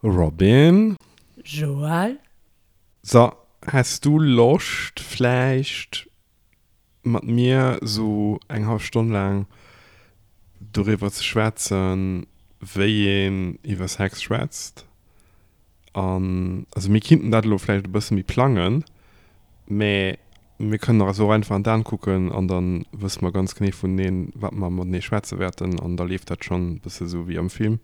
Robin. Joël. So, häss du Loscht vläicht mat mir sou eng hallef Stonn laang doriwwer ze schwätzen, wéi een iwwer Sex schwätzt? An also mir kinnten dat elo vläicht e bësse méi plangen, mä mir kënnen eis och einfach an d'Aen kucken an da wësse mer ganz genee vuneneen, wat mer matenee schwätze wäerten an da leeft dat schonn e bësse sou wéi am Film.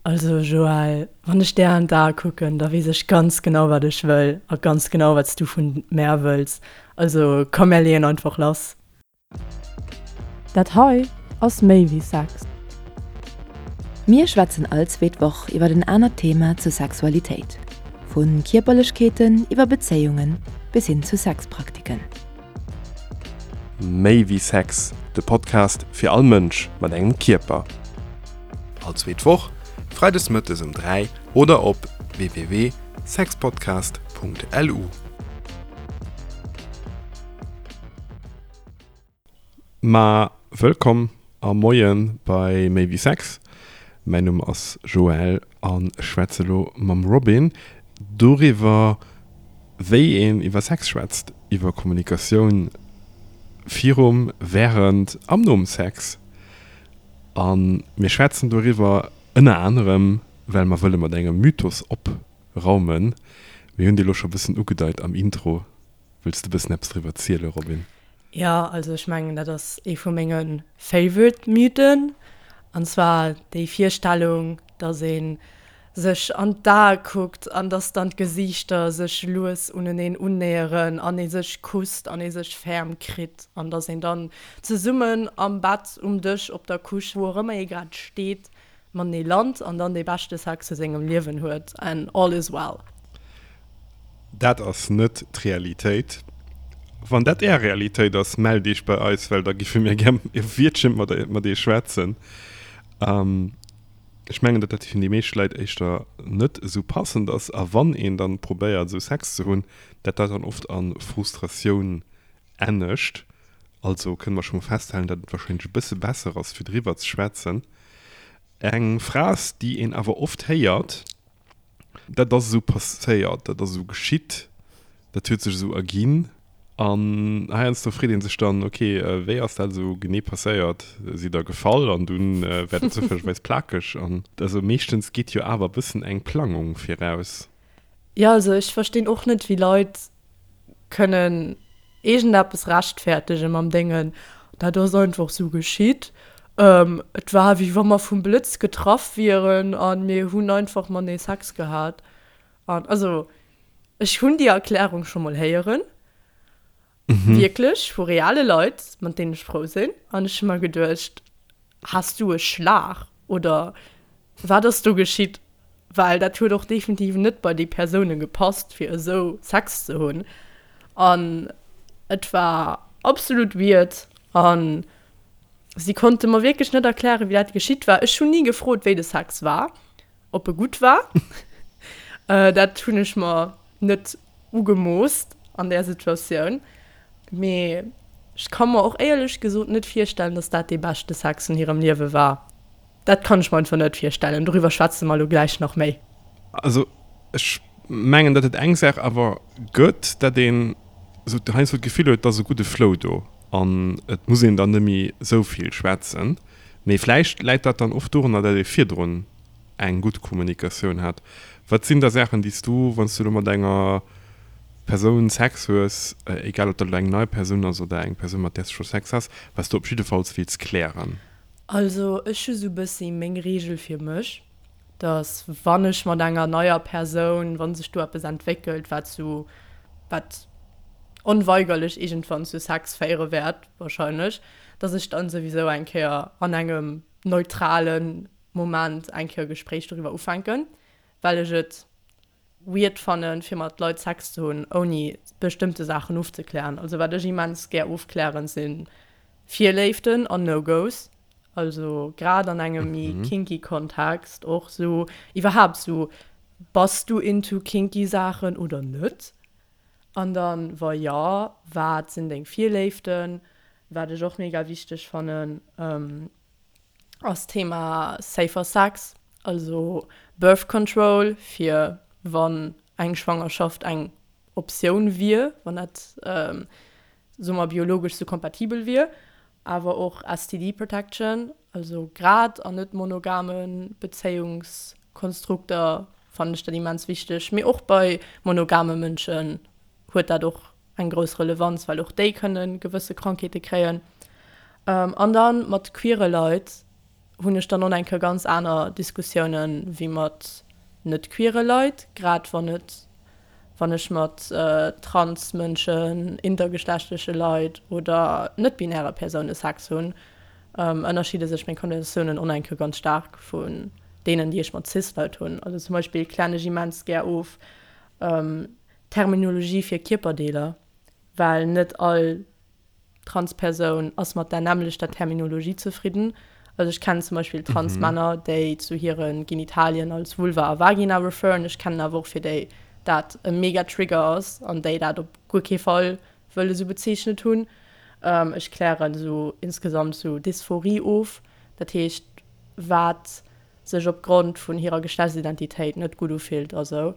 Also Joël, wann ech där an d'Ae kucken, da weess ech ganz genau wat ech wëll a ganz genau wat s du vun mär wëlls. Also komm mär leeën einfach lass. Dat hei ass méi wéi Sex. Mir schwätzen all zweet Woch iwwer en anert Thema zur Sexualitéit, vu Kierperlechkeeten iwwer Bezéiungen bis hin zu Sexpraktiken. Méi wéi Sex, de Podcast fir all Mënsch mat engem Kierper. All zweet Woch, freides mëttes um 3 oder op www.sexpodcast.lu. Ma wëllkomm a Moie bei Méi wéi Sex. Mäin Numm ass Joël an ech schwätze lo mam Robin doriwwer, wéi een iwwer Sex schwätzt, iwwer Kommunikatioun virum, wärend an nom Sex. A mir schwätzen doriwwer ënner anerem, well mer wëlle mat engem Mythos opraumen. Mir hunn dee lo scho bëssen ugedeit am Intro. Wëlls de bëssen eppes driwwer ziele, Robin? Jo, also ech mengen dat ass ee vu menge favorite Mythen, an zwar déi Virstellung, dass ee sech an d'Ae kuckt an dass dann d'Gesiichter sech lues uneneen unnäheren an ee sech kusst an ee sech ferm kritt an dass een dann zesummen am Bett, um Dësch, op der Couche, wou och ëmmer ee grad steet, matenee lant an dann dee beschte Sex vu sengem Liewen huet and all is well. Dat ass net d'Realitéit. Wann dat Är Realitéit ass, mellt Iech bei eis, well da giffe mir gär e Wiertche mat Iech schwätzen. Ech mengen, datt dat fir déi meescht Leit éischter net esou passend ass. A wann een dann probéiert, esou Sex ze hunn, dat dat dann oft a Frustratioun ennegt. Also kënne mer scho mol festhalen, datt et warscheinlech e bësse besser ass, fir driwwer ze schwätzen. Eng Phras, déi een awer oft héiert, Dat ass esou passéiert, dat ass esou geschitt, dat huet sech esou erginn. An heiansdo freet ee sech dann, ok, wéi ass dat esou genee passéiert? Sidd Der gefall an dunn war dat zoufällegerweis plakeg? An also meeschtens geet jo awer e bëssen eng Plangung viraus. Jo, also ech verstinn och net, wéi Leit kënnen iergendeppes rechtfertegen mam Déngen, dat ass einfach sou geschitt, et war wéi wa mer vum Blëtz getraff wieren a mir hunn einfach matenee Sex gehat. An also ech hunn déi Erklärung scho mol héieren, wierklech vu reale Leit, mat deenen ech frou sinn, an ech hu mer geduecht, Has du e Schlag oder wat ass do geschitt? Well dat huet och definitiv net bei déi Persoune gepasst fir esou Sex ze hunn an et war absolut weird an si konnte mer wierklech net erklären wéi dat geschitt war. Ech hunn ni gefrot wéi de Sex war, ob e gutt war. Dat hunn ech mer net ugemoosst an där Situatioun. Mee ech ka mer och éierlech gesot net virstellen, dass dat dee beschte Sex vun hirem Liewe war. Dat kann ech mer einfach net virstellen. Doriwwer schwätze mer elo gläich nach méi. Also ech mengen, datt et eng Saach awer gëtt, datt een esou heiansdo d'Gefill huet, et ass e gudde Flow do an et muss een dann net méi esou vill schwätzen. Mee vläicht läit dat dann oft dorunner, datt ee virdrun eng gutt Kommunikatioun hat. Wat sinn da Saachen, déi s du, wann s du elo mat enger Persoun Sex hues, egal ob dat elo eng nei Persoun ass oder eng Persoun, mat där s du scho Sex has, wat s du op jiddefalls wills klären? Also ech hu sou bëssi meng Reegel fir mech, dass wann ech mat enger neier Persoun, wa sech do eppes entwéckelt, wat zu, wat onweigerlech iergendwann zu Sex féiere wäert wahrscheinlech, dass ech dann souwisou eng Kéier an engem neutralen Moment eng Kéier e Gespréich doriwwer ufänken, well ech et weird fannen, fir mat Leit Sex ze hunn, ouni bestëmmte Saachen ofzeklären. Also wat ech immens gär ofklären, si Virléiften an No-Go's. Also grad an engem méi kinky Kontext och sou, iwwerhaapt sou, bass du into kinky Saachen oder net? An dann, wa jo, wat sinn deng Virléiften? Wat ech och mega wichteg fannen, ass d'Thema safer sex. Also. Birth Control, fir wann eng Schwangerschaft eng Optioun wier, wann dat, soe mer, biologesch sou kompatibel wier. Awer och STD Protection, also grad an net monogame Bezéiungskonstrukter fannen ech dat immens wichteg. Mee och bei monogame Mënschen huet dat och eng grouss Relevanz, well och déi kënne gewësse Krankheete kréien. An da mat queere Leit hunn ech dann och eng Kéier ganz aner Diskussiounen wéi mat net queere Leit, grad wann et, wann ech mat trans Mënschen, intergeschlechtleche Leit oder net-binäre Persoune Sex hunn, ënnerscheede sech meng Konversatiounen och eng Kéier ganz staark vun deenen, déi ech mat cis Leit hunn. Also zum Beispill klären ech immens gär of Terminologie fir Kierperdeeler, well net all Transpersoun ass mat der nämmlechter Terminologie zefridden. Also ech kennen zum Beispill Transmänner, déi zu hire Genitalien als Vulva a Vagina referen. Ech kennen awer och fir déi dat e mega Trigger ass an déi dat op guer kee Fall wëlle sou bezeechnet hunn. Ech klären sou insgesamt sou Dysphorie of, dat heescht wat sech opgrond vun hirer Geschlechtsidentitéit net gutt ufillt a sou.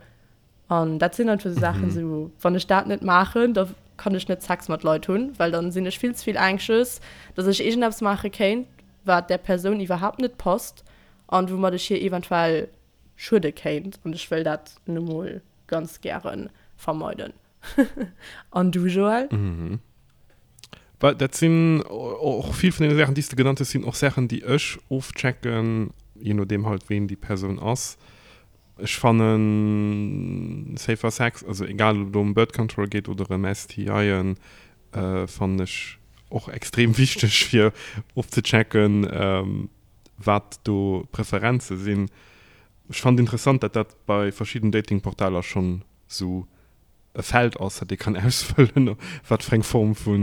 An dat sinn einfach sou Saachen, sou wann ech dat net maachen, da kann ech net Sex mat Leit hunn, well dann sinn ech vill ze vill anxious, dass ech iergendeppes maache kéint, wat där Persoun iwwerhaapt net passt an woumat ech hir eventuell schuede kéint. An ech wëll dat nu mol ganz gäre vermeiden. An du, Joël? Well dat sinn och vill vun deene Saachen, déi s de genannt hues, sinn och Saachen, déi ech ofchecken, je nodeem halt ween déi Persoun ass. Ech fannen Safer Sex, also egal ob et elo ëm Birth Control geet oder ëm STIen, fannen ech och extrem wichteg fir ofzechecken wat do d'Preferenze sinn. Ech fannen et interessant dat dat bei verschidden Datingportaler schonn sou e Feld ass dat ee kann ausfëllen wat fir eng Form vu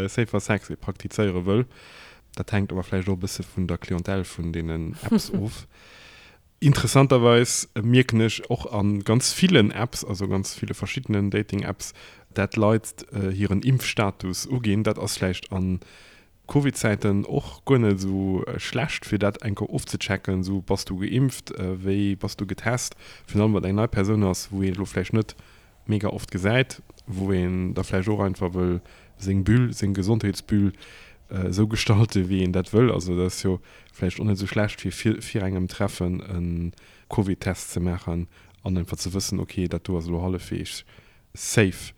Safer Sex ee praktizéiere wëll. Dat hänkt awer vläicht och e bësse vun der Clientèle vun deenen Apps of. Interessanterweis mierken ech och a ganz villen Apps, also ganz ville verschiddenen Dating-Apps, dat Leit hiren Impfstatus uginn. Dat ass vläicht a Covid-Zäiten och guer net esou schlecht, fir dat eng Kéier ofzechecken, esou, bass du geimpft, wéi bass du getest? Virun allem wann et eng nei Persoun ass, wou ee elo vläicht net mega oft gesäit, wou een da vläicht och einfach wëll seng Bulle, seng Gesondheetsbulle esou gestalten, wéi een dat wëll. Also dat ass jo vläicht och net esou schlecht, fir vir, vir engem Treffen e Covid-Test ze maachen an einfach ze wëssen, okay, dat do ass elo hallefweegs safe.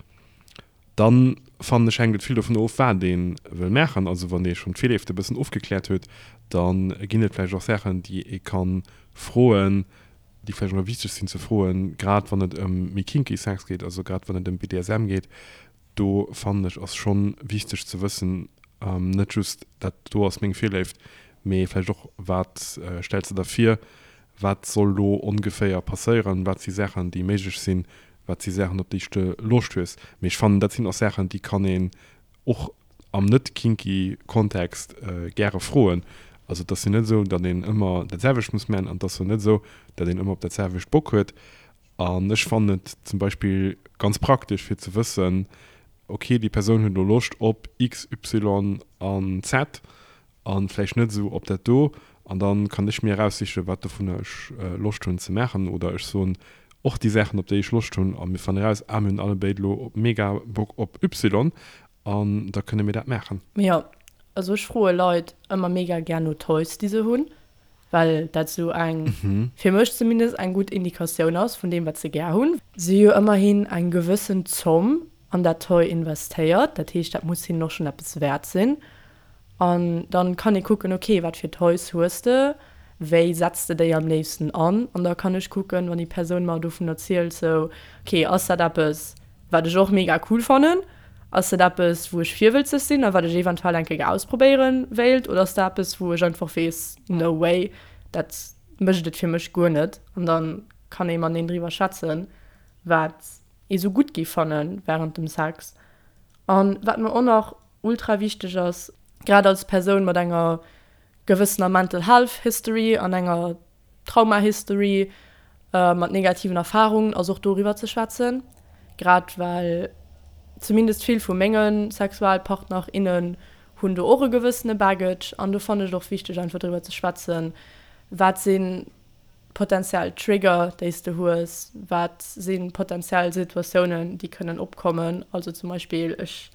Dann, fannen ech, hänkt et vill dovun of, wat ee wëll maachen. Also wann ee schonn d'Virleeft e bëssen ofgekläert huet, da ginn et vläicht och Saachen, déi ee ka froen, déi vläicht och nach wichteg sinn ze froen, grad wann et ëm méi kinky Sex geet, also grad wann et ëm BDSM geet. Do fannen ech ass schonn wichteg ze wëssen, net just dat do ass meng Virléift, mee vläicht och wat stells de der vir, wat soll do ongeféier passéieren, wat si Saachen déi méiglech sinn, wat si Saachen op déi s de Loscht hues. Mee ech fannen dat sinn och Saachen déi kann een och am net kinky Kontext gäre froen. Also et ass jo net esou, datt een ëmmer dat selwecht muss man an et ass jo net esou, datt een ëmmer op dat selwecht Bock huet. An ech fannen et zum Beispill ganz praktesch fir ze wëssen, ok déi Persoun huet elo Loscht op X, Y an Z an vläicht net esou op dat do an dann kann ech mir eraussichen, wat dovunner ech Loscht hunn ze maachen oder ech soen och déi Saachen op déi ech Loscht hunn a mir fannen eraus, ah mir hunn allebéid elo mega Bock op Y an da kënne mir dat maachen. Jo, also ech froe Leit ëmmer mega gär no Toys déi se hunn, well dat esou eng, fir mech zumindest, eng gutt Indikatioun ass vun deem wat se gär hunn. Se hu jo ëmmerhin eng gewëssen Zomm an dat Toy investéiert, dat heescht dat muss hinnen och schonn eppes wäert sinn. An dann kann ee kucken, ok, wat fir Toys hues de, wéi setz de déi am léifsten an? An da kann ech kucken, wann déi Persoun mer dovun erzielt, sou, ok, ass dat eppes, wat ech och mega cool fannen? Ass dat eppes, wou ech virwëlzeg sinn a wat ech eventuell eng Kéier ausprobéiere wéilt? Oder ass dat eppes, wou ech einfach weess, no way, dat mécht et fir mech guer net? An da kann ee mateneen driwwer schwätzen, wat ee sou gutt géif fanne wärend dem Sex. An wat mer och nach ultra wichteg ass, grad als Persoun mat enger gewëssener Mental Health History an enger Trauma History, mat negativen Erfarungen, ass och doriwwer ze schwätzen. Grad well zumindest vill vu menge Sexualpartner, innen hunn do och e gewëssene Baggage an do fannen ech et och wichteg einfach driwwer ze schwätzen, wat sinn. potenziell Trigger, déi s de hues, wat si potenziell Situatiounen, déi kënnen opkommen. Also zum Beispill, ech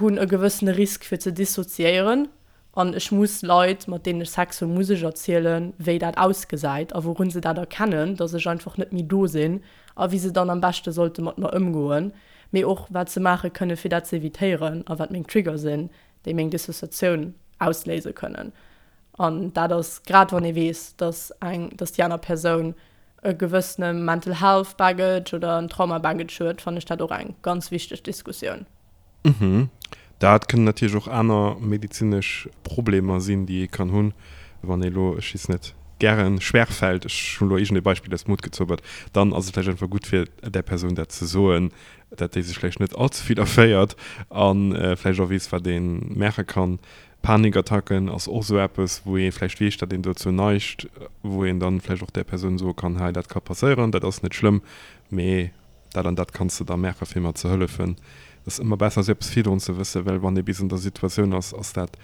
hunn e gewëssene Risk fir ze dissoziéieren an ech muss Leit, mat deenen ech Sex hunn, muss ech erzielen, wéi dat ausgesäit a wourun se dat erkennen, dass ech einfach net méi do sinn a wéi se dann am beschte sollte mat mer ëmgoen, mee och wat se maache kënne fir dat ze evitéieren a wat meng Trigger sinn, déi meng Dissociatioun ausléise kënnen. An dat ass grad wann ee weess, dass eng, dass déi aner Persoun e gewëssene Mental Health Baggage oder en Trauma Baggage huet, fannen ech dat och eng ganz wichteg Diskussioun. Mhm. Dat kënnen natierlech och aner medezinesch Problemer sinn, déi ee kann hunn, wann ee elo, ech weess net, gäre schwer fält, ech hunn elo iergendee Beispill aus dem Hutt gezaubert, dann ass et vläicht einfach gutt fir där Persoun dat ze soen, dat déi sech vläicht net all ze vill erféiert a vläicht och weess, wat ee maache kann. Panikattacken ass och esou eppes, wou ee vläicht weess, datt een dozou neigt, wou een dann vläicht och där Persoun soe kann, hei dat ka passéieren, dat ass net schlëmm, mee dat an dat kanns de da maache fir mer ze hëllefen. Et ass ëmmer besser esou eppes virdrun ze wëssen, well wann ee bis an der Situatioun ass, ass dat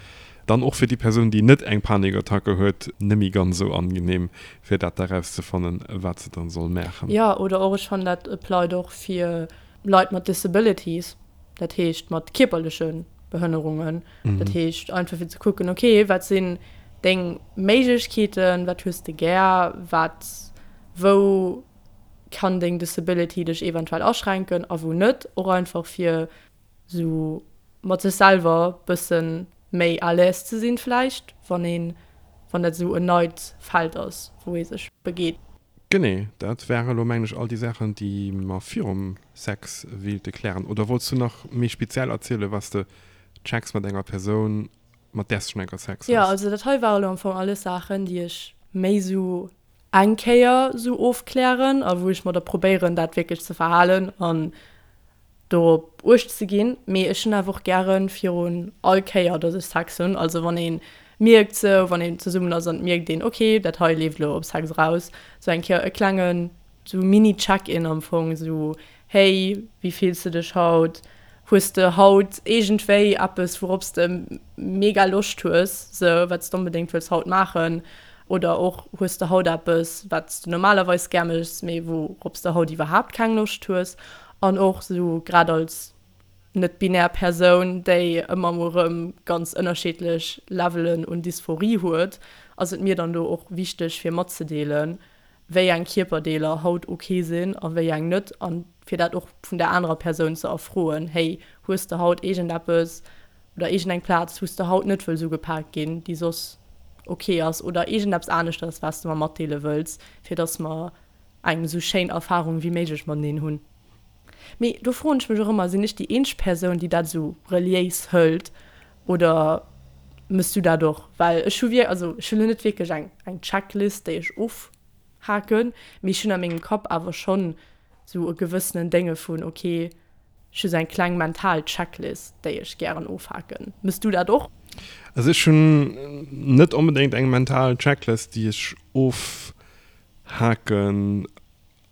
dann och fir déi Persoun, déi net eng Panikattacke huet, net méi ganz esou angenehm, fir dat da rauszefannen, wat se dann soll maachen. Jo, oder och, ech fannen dat applied och fir Leit mat Disabilities, dat heescht mat kierperleche Behënnerungen. Dat heescht einfach fir ze kucken, okay, wat sinn deng Méiglechkeeten, wat hues de gär, wat, wou kann deng Disability dech eventuell aschränken a wou net. Och einfach fir sou mat sech selwer bëssen méi à l'aise ze sinn vläicht, wann een, wann dat esou en neit Feld ass, wou ee sech begeet. Genee, dat ware lo mengen ech all déi Saachen, déi mer virum Sex wéilte klären. Oder wollts du nach méi speziell erzielen, was de checks mat enger Persoun, mat där s de schonn eng Kéier Sex Jo, also dat hei ware lo am Fong alles Saachen, déi ech méi sou eng Kéier sou ofklären a wou ech mer da probéieren, dat wierklech ze verhalen an dorop uecht ze ginn. Mee ech hunn awer och gäre virun all Kéier, datt ech Sex hunn, also wann ee mierkt sou, wann een zesummen ass an et mierkt een, ok, dat hei leeft elo op Sex eraus, sou eng Kéier e klengen sou Mini-Check-in am Fong, sou, Hey, wéi fills de dech haut? Hues de haut iergendwéi eppes, wourops de mega Loscht hues, sou wat s de onbedéngt wëlls haut maachen? Oder och, hues de haut eppes, wat s de normalerweis gär méchs, mee wourops de haut iwwerhaapt keng Loscht hues? An och sou grad als net-binär Persoun, déi ëmmer mol erëm ganz ënnerschiddlech Levelen un Dysphorie huet, ass et mir dann do och wichteg fir matzedeelen, wéi eng Kierperdeeler haut ok sinn a wéi eng net an fir dat och vun der anerer Persoun ze erfroen, hey, hues de haut iergendeppes oder iergendeng Plaz, wou s de haut net wëlls ugepaakt ginn, déi soss ok ass oder iergendeppes aneschters, wat s de mer matdeele wëlls, fir dass mer eng esou schéin Erfarung wéi méiglech mateneen hunn. Mee do froen ech mech och ëmmer, sinn ech déi eenzeg Persoun, déi dat esou reliéis hëlt oder mëss du dat och? Well ech hu wier, also ech hunn elo net wierklech eng eng Checklist, déi ech ofhaken, mee ech hunn a mengem Kapp awer schonn esou e gewëssenen Dénge vun, ok, ech hu sou eng kleng mental Checklist, déi ech gären ofhaken. Mëss du dat och? Also ech hunn net onbedéngt eng mental Checklist, déi ech ofhaken.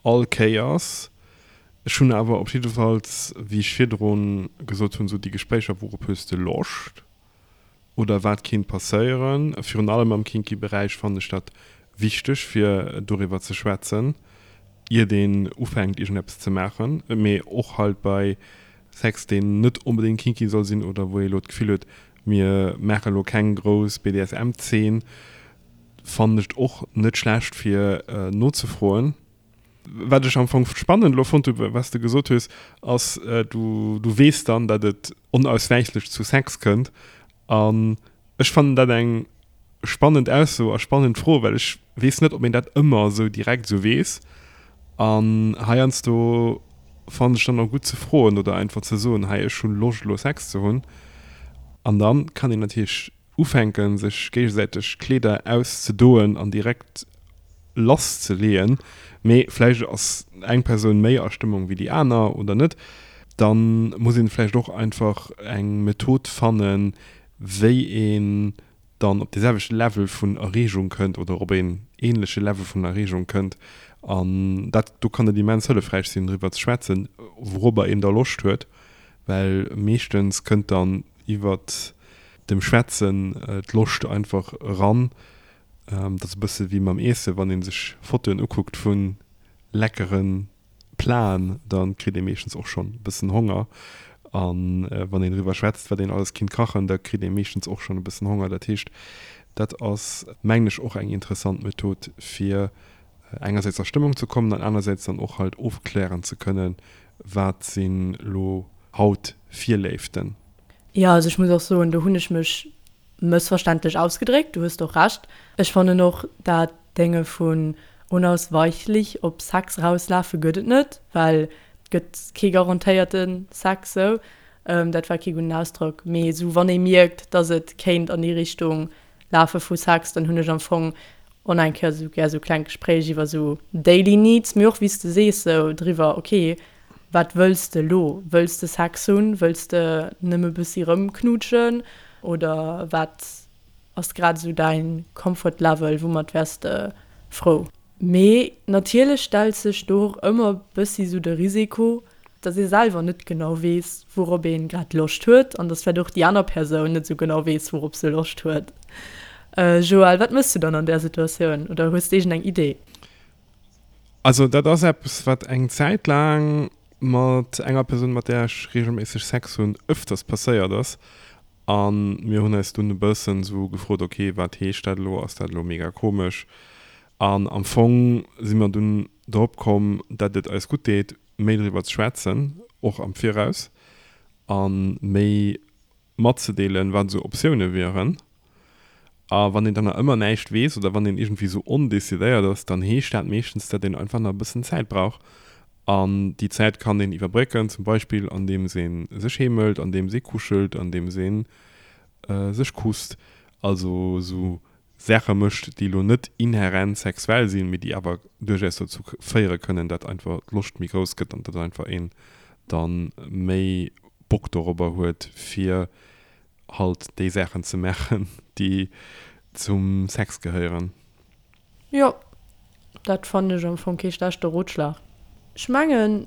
All Kéiers. Ech hunn awer op jiddefalls, wéi ech virdrun gesot hunn, esou déi Gespréicher, wourop hues de Loscht oder wat kinnt passéieren. Virun allem am kinky Beräich fannen ech dat wichteg, fir doriwwer ze schwätzen, iert een ufänkt iergendeppes ze maachen. Mee och halt bei Sex, deen net onbedéngt kinky soll sinn oder wou ee elo d'Gefill huet, mir maache elo keng grouss BDSM-Zeen, Fannen ech et och net schlecht fir nozefroen. Wat ech am Fong spannend elo fonnt hu wat s de gesot hues, ass du du weess dann, datt et onauswäichlech zu Sex kënnt. An ech fannen dat eng spannend Ausso a spannend Fro, well ech weess net, ob een dat ëmmer esou direkt esou weess. An heiansdo fannen ech dann och gutt ze froen oder einfach ze soen, hei ech hu Loscht elo Sex ze hunn. An dann kann een natierlech Ufänken sech géigesäiteg Kleeder auszedoen an direkt lass ze leeën, mee vläicht ass eng Persoun méi a Stëmmung wéi déi aner oder net, dann muss een vläicht och einfach eng Method fannen, wéi een dann op dee selwechte Level vun Erreegung kënnt oder op een ähnleche Level vun Erreegung kënnt. An dat do kann et immens hëllefräich sinn driwwer ze schwätzen, wourobber een da Loscht huet, well meeschtens kënnt dann iwwert dem Schwätzen d'Loscht einfach eran. Dat ass e bësse wéi mam Iessen, wann ee sech Fotoen ukuckt vu leckere Platen, da kritt ee meeschtens och schonn e bëssen Honger. A wann een driwwer schwätzt, wat een alles kinnt kachen, da kritt ee meeschtens och schonn e bëssen Honger. Dat heescht, dat ass, mengen ech, och eng interessant Method, fir engersäits a Stëmmung ze kommen an anersäits dann och halt ofklären ze kënnen, wat sinn elo haut Virléiften. Jo, also ech muss och soen, do hunn ech mech mëssverständlech ausgedréckt, du hues och Recht. Ech fannen och, dat Dénge vun unausweichlich op Sex rauslafe gëtt et net, well et gëtt kee garantéierte Sex sou. Dat war kee gudden Ausdrock, mee sou wann ee mierkt, dass et kéint an déi Richtung lafe vu Sex, dann hunn ech am Fong och nach eng Kéier sou gär sou kleng Gespréich iwwer sou daily needs, mee och wéi s de sees sou driwwer, ok, Wat wëlls de elo? Wëlls de Sex hunn? Wëlls de nëmme bëssi rëmknuutschen? Oder wat ass grad esou däin Comfort Level? Woumat wäers de frou? Mee natierlech stellt sech do och ëmmer bëssi sou de Risiko, dass ee selwer net genau weess, wourop een grad Loscht huet an dass vläicht och déi aner Persoun net sou genau weess, wourop se Loscht huet. Joël, wat mëss du dann an där Situatioun? Oder hues de iergendeng Idee? Also dat ass eppes, wat eng Zäit laang mat enger Persoun, mat där ech reegelméisseg Sex hunn, ëfters passéiert ass. A mir hunn eis dunn e bëssen esou gefrot, ok, wat heescht dat elo? Ass dat elo mega komesch? An am Fong si mer dunn drop komm, datt et eis gutt deet, méi driwwer ze schwätzen, och am Viraus, a méi matzedeelen, wat esou Optioune wieren. A wann een dann nach ëmmer näischt weess oder wann een iergendwéi esou ondecidéiert ass, dann heescht dat meeschtens, datt een einfach nach e bëssen Zäit brauch. An déi Zäit kann een iwwerbrécken, zum Beispill andeems ee sech heemelt, andeems ee kuschelt, andeems ee sech kusst. Also esou Saache mécht, déi elo net inhärent sexuell sinn, mee déi awer duerchaus dozou féiere kënnen, datt einfach d'Loscht méi grouss gëtt an datt einfach een da méi Bock dorobber huet, fir halt déi Saachen ze maachen, déi zum Sex gehéieren. Jo, dat fannen ech am Fong kee schlechte Rotschlag. Ech mengen,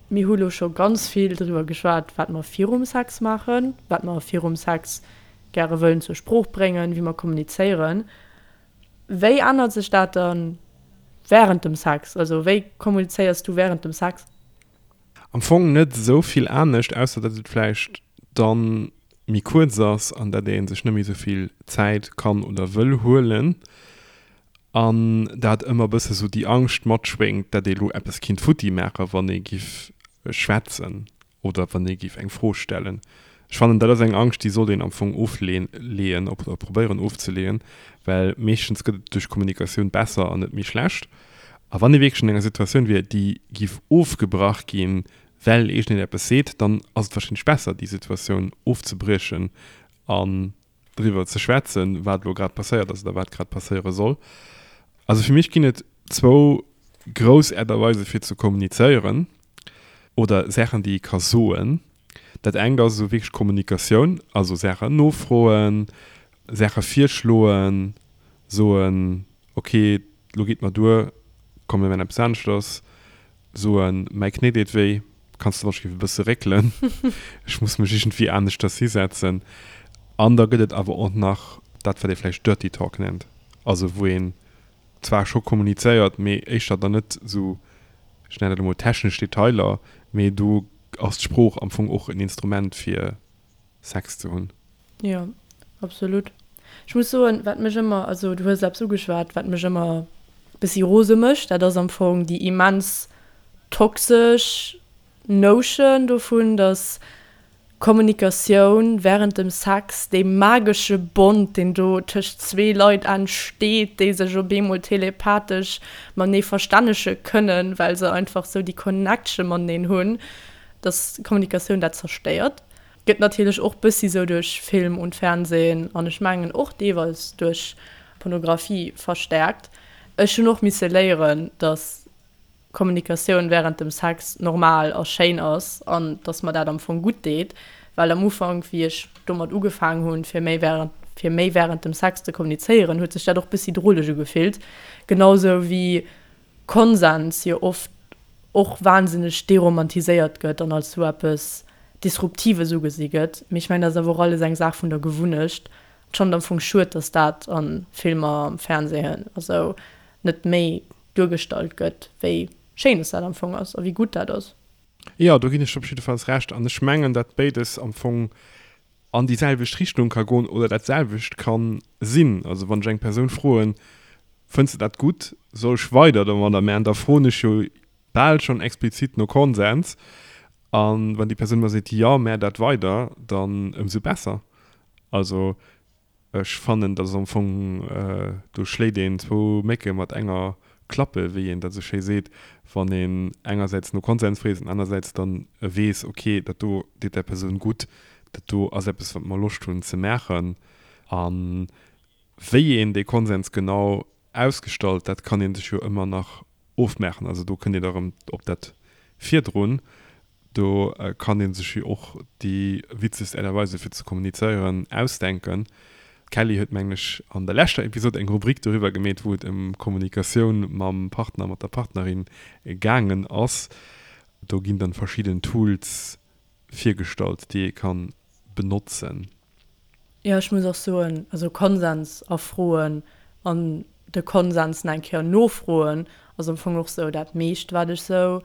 mir hu lo scho ganz vill driwwer geschwat, wat mer virum Sex maachen, wat mer virum Sex gäre wëllen zur Sprooch bréngen, wéi mer kommunizéieren. Wéi ännert sech dat dann während dem Sex? Also wéi kommunizéiers du während dem Sex? Am Fong net esou vill anescht, ausser datt et vläicht dann méi kuerz ass an datt ee sech net méi esou vill Zäit kann oder wëll huelen an dat ëmmer e bësse sou déi Angscht matschwéngt, datt ee lo eppes kinnt futti maachen, wann ee giff schwätzen oder wann ee giff eng Fro stellen. Ech fannen, dat ass eng Angscht, déi sollt een am Fong ofleeën oder probéieren ofzeleeën, well meeschtens gëtt et duerch Kommunikatioun besser an net méi schlecht. A wann ee wierklech an enger Situatioun wier, déi giff ofgebrach ginn, well iergendeen eppes seet, dann ass et warscheinlech besser, déi Situatioun ofzebriechen an driwwer ze schwätzen, wat elo grad passéiert ass oder wat grad passéiere soll. Also fir mech ginn et zwou grouss Äert a Weise fir ze kommunizéieren oder Saachen, déi ee ka soen. Dat engt ass esou wierklech Kommunikatioun, also Saachen nofroen, Saache virschloen, soen, ok, lo geet mer duer, komm mir maachen eppes aneschters, soen, mäi Knéi deet wéi, kanns de wann ech géif e bësse réckelen, ech muss mech iergendwéi aneschters hisetzen. An da gëtt et awer och nach dat, wat ee vläicht Dirty Talk nennt, also wou een zwar scho kommunizéiert, mee éischter dann net esou, ech nennen dat emol technesch Detailer, mee do ass d'Sprooch am Fong och en Instrument fir Sex ze hunn. Jo, absolut. Ech muss soen, wat mech ëmmer, also du hues eppes ugeschwat, wat mech ëmmer bëssi rose mécht, dat ass am Fong déi immens toxesch Notion dovun, dass Kommunikatioun während dem Sex, dee magesche Bond, deen do tëscht zwee Leit entsteet, déi sech op eemol telepathesch matenee verstännege kënnen, well se einfach sou déi Connection mateneen hunn, dass Kommunikatioun dat zerstéiert. Gëtt natierlech och bëssi sou duerch Film und Fernsehen an ech mengen och deelweis duerch Pornografie verstärkt. Ech hunn och misse léieren, dass Kommunikatioun während dem Sex normal a schéin ass an dass mer dat am Fong gutt deet, well am Ufank wéi ech domat ugefaang hunn fir méi während fir méi während dem Sex ze kommunizéieren, huet sech dat och bëssi droleg ugefillt. Genau sou wéi Konsens jo oft och wahnsinneg deromantiséiert gëtt an als sou eppes Disruptives ugesi gëtt. Mee ech mengen, dat ass awer och alles eng Saach vun der Gewunnecht. Ech fannen et am Fong schued, dass dat a Filmer, am Fernsehen a sou net méi duergestallt gëtt, wéi schéin dass dat am Fong ass a wéi gutt dat ass. Jo, do ginn ech der op jiddefalls Recht. An ech mengen, dat béides am Fong an déi selwecht Richtung ka goen oder dat selwecht ka sinn. Also wann ech eng Persoun froen, Fënns de dat gutt, soll ech weider domadder man, da froen ech jo bal schonn explizit no Konsens. A wann déi Persoun mer seet, Jo, mä dat weider, dann ëmsou besser. Also Ech fannen, dat ass am Fong, do schléit een zwou Mécke mat enger Klappe, wéi een dat esou schéi seet, wann een engersäits no Konsens freet an anersäits dann weess, ok, dat do deet där Persoun gutt, dat do ass eppes, wat mer Loscht hunn ze maachen. A wéi een dee Konsens genau ausgestallt, dat kann ee sech jo ëmmer nach ofmaachen. Also do kënnt een da erëm op dat virdrun, Do kann ee sech jo och déi witzegst Aart a Weise fir ze kommunizéieren ausdenken. D'Kelly huet, mengen ech, an der leschter Episod eng Rubrik doriwwer gemeet, wou et ëm Kommunikatioun mam Partner, mat der Partnerin gaangen ass. Do ginn dann verschidden Tools virgestallt, déi ee kann benotzen. Jo, ech muss och soen, also Konsens erfroen an de Konsens nach eng Kéier nofroen ass am Fong och sou dat meescht, wat ech sou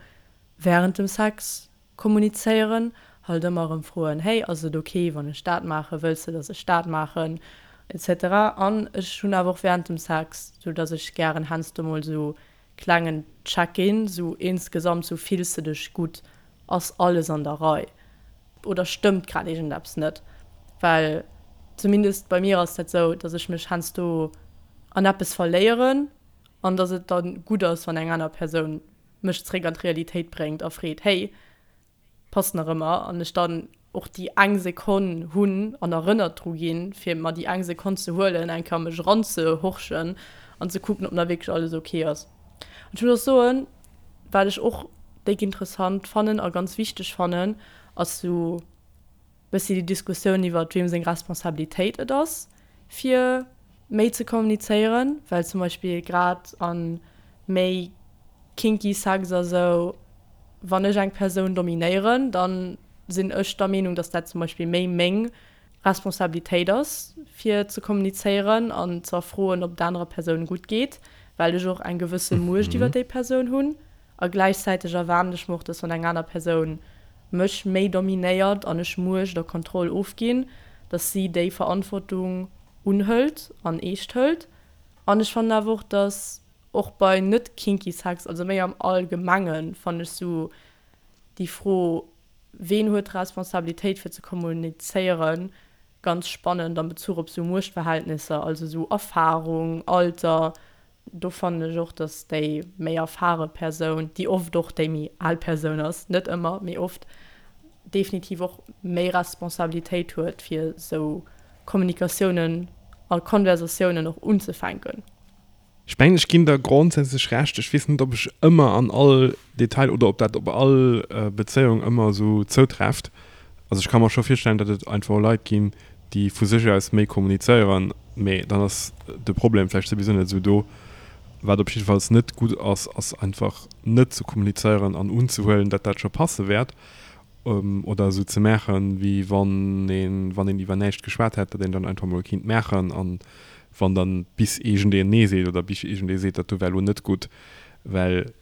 Während dem Sex kommunizéieren, halt ëmmer erëm froen, hey, ass et ok wann ech dat maachen, wëlls de dass ech dat maachen, etc. An ech hunn awer och während dem Sex, sou dass ech gären heiansdo mol sou klengen Check-in, sou insgesamt, sou fills de dech gutt, ass alles an der Rei oder stëmmt grad iergendeppes net, well zumindest bei mir ass dat sou, dass ech mech heiansdo an eppes verléieren an dass et dann gutt ass wann eng aner Persoun mech zréck an d'Realitéit bréngt a freet, hey, passt nach ëmmer? An ech dann och déi eng Sekonn hunn an erënnert dru ginn, fir mer déi eng Sekonn ze huelen, eng Kéier a mech eranzehorchen an ze kucken, ob nach wierklech alles ok ass. An ech muss och soen, wat ech och déck interessant fannen a ganz wichteg fannen, ass sou, bëssi déi Diskussioun iwwert weem seng Responsabilitéit et ass fir méi ze kommunizéieren, well zum Beispill grad a méi kinky Sex a sou, wann ech eng Persoun dominéieren, da sinn ech der Meenung, datt dat zum Beispill méi meng Responsabilitéit ass fir ze kommunizéieren an ze erfroen, ob et anerer Persoun gutt geet, well ech och eng gewësse Muecht iwwer déi Persoun hunn. A gläichzäiteg erwaarden ech mer och, dass wann eng aner Persoun mech méi dominéiert an ech Muecht a Kontroll ofginn, dass si déi Verantwortung unhëlt an eescht hëlt. An ech fannen awer och, dass och bei net kinky Sex, also méi am Allgemengen, fannen ech sou déi Fro, ween huet d'Responsabilitéit fir ze kommunizéieren, ganz spannend am Bezuch op sou Muechtverhältnisser, also sou Erfarung, Alter, Do fannen ech och, dass déi méi erfare Persoun, déi oft och déi méi al Persoun ass, net ëmmer, mee oft, definitiv och méi Responsabilitéit huet, fir esou Kommunikatiounen a Konversatiounen och unzefänken. Ech mengen, ech ginn der grondsätzlech Recht. Ech weess net, ob ech ëmmer an all Detail oder ob dat op all Bezéiung ëmmer esou zoutréfft. Also ech ka mer scho virstellen, datt et einfach och Leit ginn, déi vu sech aus méi kommunizéieren, mee dann ass de Problem vläicht souwisou net esou do. Wat op jiddefalls net gutt ass, ass einfach net ze kommunizéieren an unzehuelen, datt dat scho passe wäert oder esou ze maachen, wéi wann een, wann een iwwer näischt geschwat hätt, datt een dann einfach mol kinnt maachen an wann dann bis iergendeen Nee seet oder bis iergendee seet, dat do war elo net gutt, well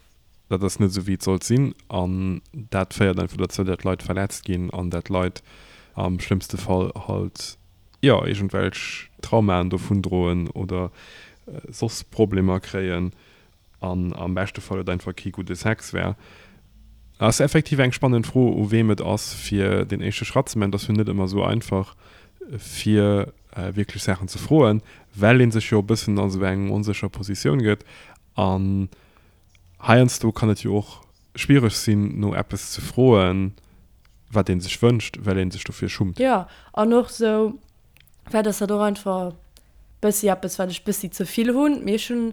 Dat ass net esou wéi et sollt sinn an dat féiert einfach dozou, dat Leit verletzt ginn an dat Leit am schlëmmste Fall halt, jo, iergendwelch Traumaen dovun droen oder soss Problemer kréien an am beschte Fall et einfach kee gudde Sex war. Ass effektiv eng spannend Fro u weem et ass fir deen éischte Schratt ze man. Et ass jo net ëmmer esou einfach fir wierklech Saachen ze froen, well ee sech jo e bëssen a sou eng onsécher Positioun gëtt an Heiansdo kann et jo och schwiereg sinn, no eppes ze froen, wat ee sech wënscht, well ee sech dofir schummt. Jo, an och sou, vläicht ass dat och einfach bëssi eppes, wat ech bëssi ze vill hunn, mee ech hunn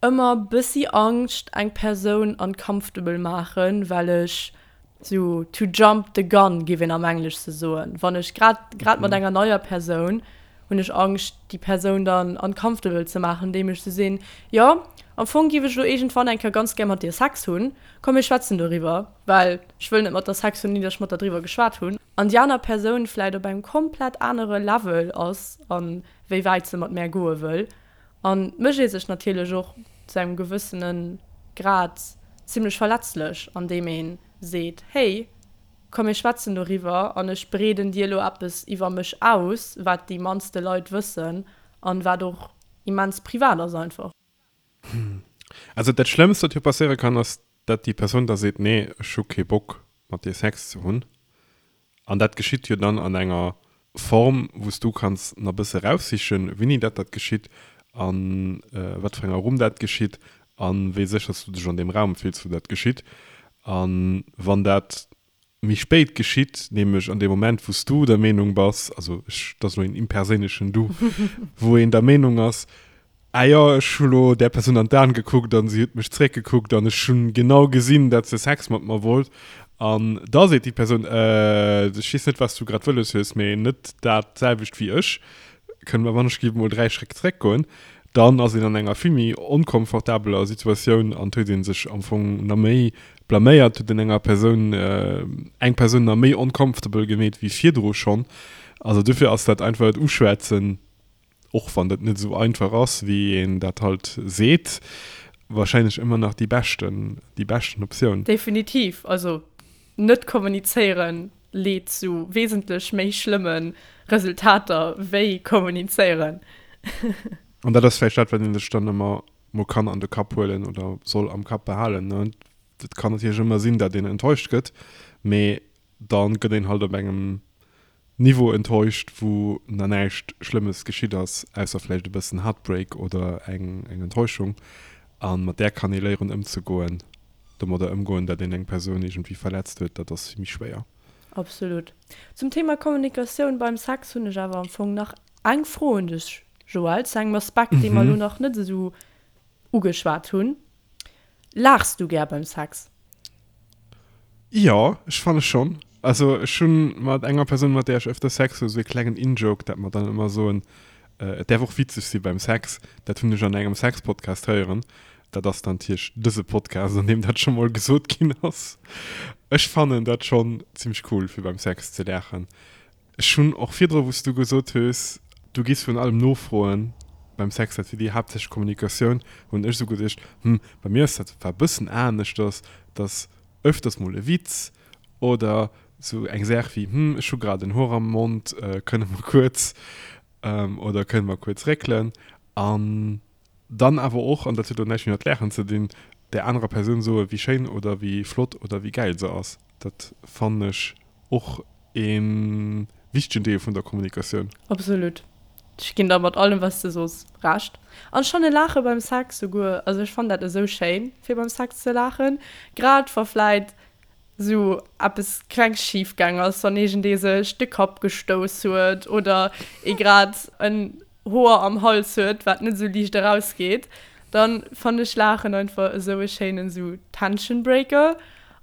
ëmmer bëssi Angscht, eng Persoun uncomfortable maachen, well ech sou to jump the gun, géif een am Englesche soen, wann ech grad, grad mat enger neier Persoun, hunn ech Angscht, déi Persoun dann uncomfortable ze maachen, andeem ech sou sinn, jo, Am Fong giff ech elo iergendwann eng Kéier ganz gär mat dir Sex hunn, komm mir schwätzen doriwwer, well ech wëll net mat der Sex hunn, ni datt ech mat der driwwer geschwat hunn. An déi aner Persoun vläit op engem komplett anere Level ass a wéi wäit se mat mär goe wëll. An mécht ee sech natierlech och zu engem gewëssene Grad zimlech verletzlech, andeem ee seet, hey, komm mir schwätzen doriwwer an ech breeden dir elo eppes iwwer mech aus, wat déi mannste Leit wëssen an wat och immens privat ass einfach. Also dat Schlëmmst, wat jo passéiere kann, ass, dat déi Persoun da seet, nee, ech hu kee Bock mat dir Sex ze hunn. An dat geschitt jo dann an enger Form, wou s du kanns nach e bësse raussichen, wéini dat dat geschitt a wat fir enger Rumm dat geschitt a wéi sécher s du dech an deem Raum fills, wou dat geschitt. A wann dat méi spéit geschitt, nämlech an deem Moment, wou s du der Meenung bass, also ech, dat ass elo een imperséinlechen Du, wou een der Meenung ass, Ah jo, ech hu lo där Persoun an d'Aen gekuckt an si huet mech zréckgekuckt an ech hunn genau gesinn, dat se Sex mat mer wollt. An da seet déi Persoun, Äh, ech weess net, wat s du grad wëlles hues, mee net dat selwecht wéi ech. Kënne mer wann ech géif mol 3 Schréck zréckgoen? Dann ass een an enger vill méi onkomfortabeler Situatioun an huet ee sech am Fong na méi blaméiert, huet een enger Persoun, eng Persoun na méi uncomfortable gemeet wéi virdru schonn. Also dofir ass dat einfach et Uschwätzen, och wann dat net esou einfach ass, wéi een dat halt seet, wahrscheinlech ëmmer nach déi beschten, déi beschten Optioun. Definitiv. Also net kommunizéieren leet zu wesentlech méi schlëmme Resultater wéi kommunizéieren. An dat ass vläicht dat, wat ee sech dann ëmmer mol kann an de Kapp huelen oder soll am Kapp behalen, ne. Et kann natierlech ëmmer sinn, dat een enttäuscht gëtt, mee da gëtt een halt op engem Niveau enttäuscht, wou na näischt Schlëmmes geschitt ass, ausser vläicht e bëssen Heartbreak oder eng eng Enttäuschung. A mat där kann ee léieren ëmzegoen. Domadder ëmgoen, dat een eng Persoun iergendwéi verletzt huet, dat ass vill méi schwéier. Absolut. Zum Thema Kommunikatioun beim Sex hunn ech awer am Fong nach eng Fro un dech, Joël, zu engem Aspekt, dee mer elo nach net esou ugeschwat hunn. Laachs du gär beim Sex? Jo, ech fanne schonn. Also ech hu mat enger Persoun, mat där ech ëfter Sex hu, esou e klengen In-Joke, dat mer dann ëmmer soen, et däerf och witzeg si beim Sex. Dat hunn ech an engem Sex-Podcast héieren. Dat ass dann natierlech dëse Podcast, an deem dat scho mol gesot ginn ass. Ech fannen dat schonn zimmlech cool, fir beim Sex ze laachen. Ech hunn och virdru, wou s du gesot hues, du giss virun allem nofroen beim Sex, dat wier déi haaptsächlech Kommunikatioun, hunn ech esou geduecht, hm, bei mir ass dat zwar e bëssen aneschters, dass öfters mol e Witz oder esou eng Saach wéi, hm, ech hu grad en Hoer am Mond, kënne mer kuerz oder kënne mer kuerz réckelen an Dann awer och, an dat huet elo näischt méi mat Laachen ze dinn, där anerer Persoun soen, wéi schéin oder wéi flott oder wéi gäil se ass. Dat fannen ech och e wichtegen Deel vun der Kommunikatioun. Absolut. Ech ginn der mat allem, wat s de sos, Recht. An ech fanne Laache beim Sex souguer, also ech fannen dat esou schéin, fir beim Sex ze laachen, grad wa vläit sou eppes kleng schif gaang ass, wann iergendee sech de Kapp gestouss huet oder ee grad en Hoer am Hals huet, wat net sou liicht erausgeet, dann fannen ech Laachen einfach esou e schéinen sou Tension Breaker